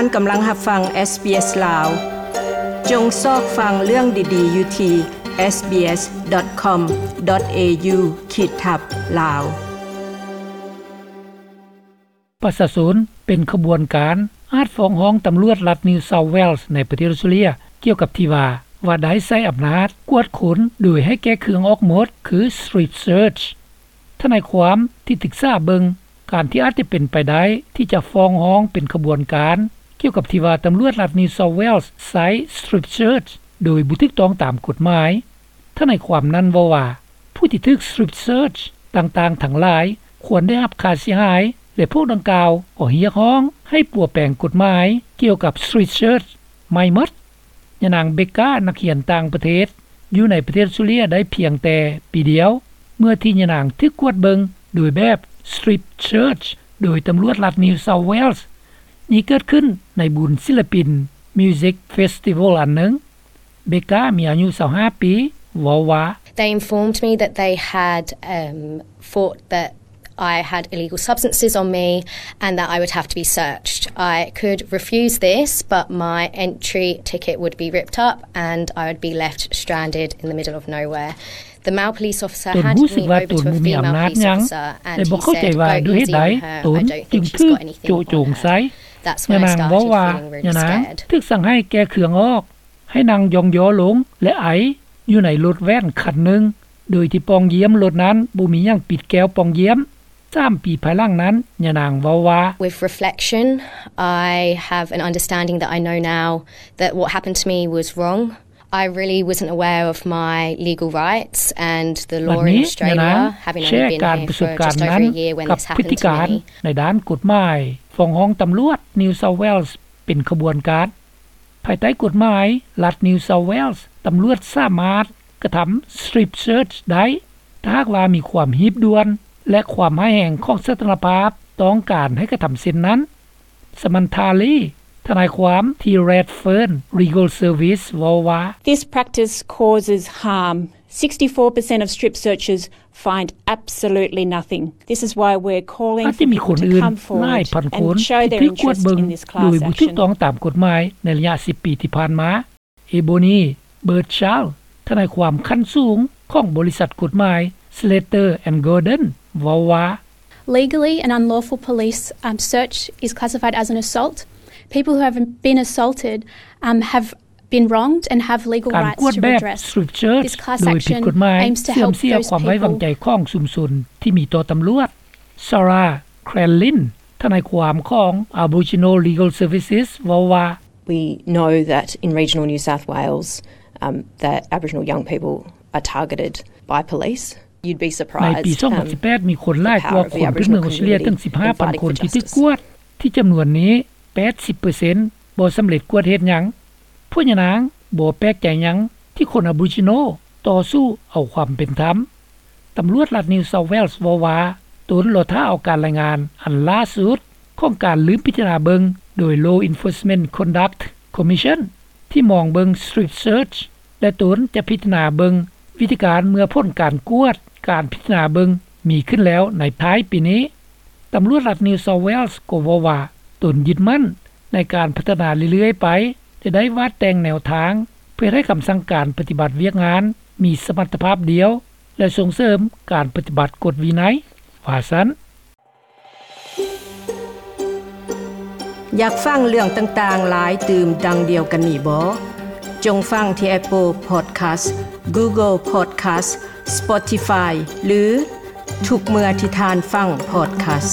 ທ່ານກຳລັງຮັບຟັງ ເອສບີເອສ ລາວ. ຈົ່ງຊອກຟັງເລື່ອງດີໆຢູ່ທີ່ ເອສບີເອສ ດອດ ຄອມ ດອດ ເອຢູ ຂີດທັບ ລາວ. ປະຊາຊົນເປັນຂະບວນການອາດຟ້ອງຮ້ອງຕຳຫຼວດລັດ New South Wales ໃນປະເທດອອສເຕຣເລຍ ກ່ຽວກັບທີ່ວ່າ ວ່າໄດ້ໃຊ້ອຳນາດກວດຄົນໂດຍໃຫ້ແກະເຄື່ອງອອກໝົດ ຄື strip search. ທະນາຍຄວາມທີ່ສຶກສາເບິ່ງການທີ່ອາດຈະເປັນໄປໄດ້ທີ່ຈະຟ້ອງຮ້ອງເປັນຂະບວນການ ກ່ຽວກັບທີ່ວ່າຕຳຫຼວດລັດ New South Wales ໃຊ້ strip search ໂດຍບໍ່ຖືກຕ້ອງຕາມກົດໝາຍ. ທະນາຍຄວາມນັ້ນເວົ້າວ່າ ຜູ້ທີ່ຖືກ strip search ຕ່າງໆທັງຫຼາຍຄວນໄດ້ຮັບຄ່າເສຍຫາຍ ແລະ ພວກດັ່ງກ່າວກໍຮຽກຮ້ອງໃຫ້ປົວແປງກົດໝາຍກ່ຽວກັບ strip search ໃໝ່ໝົດ. ຍານາງ ເບກກາ ນັກຮຽນຕ່າງປະເທດ ຢູ່ໃນປະເທດອອສເຕຣເລຍໄດ້ພຽງແຕ່ປີດຽວ ເມື່ອທີ່ຍານາງຖືກກວດເບິ່ງໂດຍແບບ strip search ໂດຍຕຳຫຼວດລັດ New South Wales. ນີ້ເກີດຂຶ້ນໃນບຸນສິລະປິນ Music Festival ອັນໜຶ່ງ. ເບກກາ ມີອາຍຸຊາວຫ້າປີ ເວົ້າວ່າ They informed me that they had, um, thought that I had illegal substances on me and that I would have to be searched. I could refuse this, but my entry ticket would be ripped up and I would be left stranded in the middle of nowhere. The male police officer ຕົນຮູ້ສຶກວ່າຕົນບໍ່ມີອຳນາດຫຍັງ ແລະ ບໍ່ເຂົ້າໃຈວ່າດ້ວຍເຫດໃດຕົນຈຶ່ງຖືກໂຈະໂຈງໃສ່. That's when I started feeling really scared. ຍານາງເວົ້າວ່າ ຍານາງຖືກສັ່ງໃຫ້ແກະເຄື່ອງອອກ ໃຫ້ນັ່ງຢ່ອງຍໍລົງ ແລະ ໄອຢູ່ໃນລົດແວ່ນຄັນໜຶ່ງ ໂດຍທີ່ປ່ອງຢ້ຽມລົດນັ້ນບໍ່ມີຫຍັງປິດແກ້ວປ່ອງຢ້ຽມ. ສາມປີພາຍຫຼັງນັ້ນ ຍານາງເວົ້າວ່າ With reflection, I have an understanding that I know now that what happened to me was wrong. I really wasn't aware of my legal rights and the law in Australia, having only been here for just over a year when this happened to me. ໃນດ້ານກົດໝາຍ ຟ້ອງຮ້ອງຕຳຫຼວດ New South Wales ເປັນຂະບວນການ. ພາຍໃຕ້ກົດໝາຍລັດ New South Wales ຕຳຫຼວດສາມາດກະທຳ strip search ໄດ້ ຖ້າຫາກວ່າມີຄວາມຮີບດ່ວນ ແລະ ຄວາມຮ້າຍແຮງຂອງສະຖານະພາບຕ້ອງການໃຫ້ກະທຳເຊັ່ນນັ້ນ. Samantha Lee ທະນາຍຄວາມທີ່ Redfern Legal Service ເວົ້າວ່າ This practice causes harm. Sixty-four percent of strip searchers find absolutely nothing. This is why we're calling for people to come forward and show their interest in this class action. ອາດຈະມີຄົນອື່ນຫຼາຍພັນຄົນທີ່ຖືກກວດເບິ່ງໂດຍບໍ່ຖືກຕ້ອງຕາມກົດໝາຍໃນໄລຍະສິບປີທີ່ຜ່ານມາ. Ebony Birdsall ທະນາຍຄວາມຂັ້ນສູງຂອງບໍລິສັດກົດໝາຍ Slater and Gordon ເວົ້າວ່າ Legally, an unlawful police, um, search is classified as an assault. People who have been assaulted, um, have been wronged and have legal rights to redress. ການກວດແບບ strip search ໂດຍຜິດກົດໝາຍ ເສື່ອມເສຍຄວາມໄວ້ວາງໃຈຂອງຊຸມຊົນທີ່ມີຕໍ່ຕຳຫຼວດ. Sarah Crellin ທະນາຍຄວາມຂອງ Aboriginal Legal Services ເວົ້າວ່າ We know that in regional New South Wales, um, that Aboriginal young people are targeted by police. You'd be surprised, um, ໃນປີສອງພັນສິບແປດ ມີຄົນຫຼາຍກວ່າຄົນພື້ນເມືອງອອສເຕຣເລຍເຖິງສິບຫ້າພັນຄົນທີ່ຖືກກວດ, ທີ່ຈຳນວນນີ້ ແປດສິບເປີເຊັນບໍ່ສຳເລັດກວດເຮັດຫຍັງ. ພວກຍານາງບໍ່ແປກໃຈຫຍັງທີ່ຄົນ Aboriginal ຕໍ່ສູ້ເອົາຄວາມເປັນທຳ. ຕຳຫຼວດລັດ New South Wales ເວົ້າວ່າ ຕົນລໍຖ້າເອົາການລາຍງານອັນລ່າສຸດຂອງການລືມພິຈາລະນາເບິ່ງໂດຍ Law Enforcement Conduct Commission ທີ່ມອງເບິ່ງ strip search ແລະ ຕົນຈະພິຈາລະນາເບິ່ງວິທີການເມື່ອຜົນການກວດການພິຈາລະນາເບິ່ງມີຂຶ້ນແລ້ວໃນທ້າຍປີນີ້. ຕຳຫຼວດລັດ New South Wales ກໍເວົ້າວ່າ ຕົນຍຶດໝັ້ນໃນການພັດທະນາເລື້ອຍໆໄປ ແລະ ໄດ້ວາດແຕ່ງແນວທາງເພື່ອເຮັດໃຫ້ຄຳສັ່ງການປະຕິບັດວຽກງານມີສະມັດຕະພາບດຽວ ແລະ ສົ່ງເສີມການປະຕິບັດກົດວິໄນ ວ່າຊັ້ນ. ຢາກຟັງເລື່ອງຕ່າງໆຫຼາຍຕື່ມດັ່ງດຽວກັນນີ້ບໍ? ຈົ່ງຟັງທີ່ Apple Podcast, Google Podcast, Spotify ຫຼື ທຸກເມື່ອທີ່ທ່ານຟັງ podcast.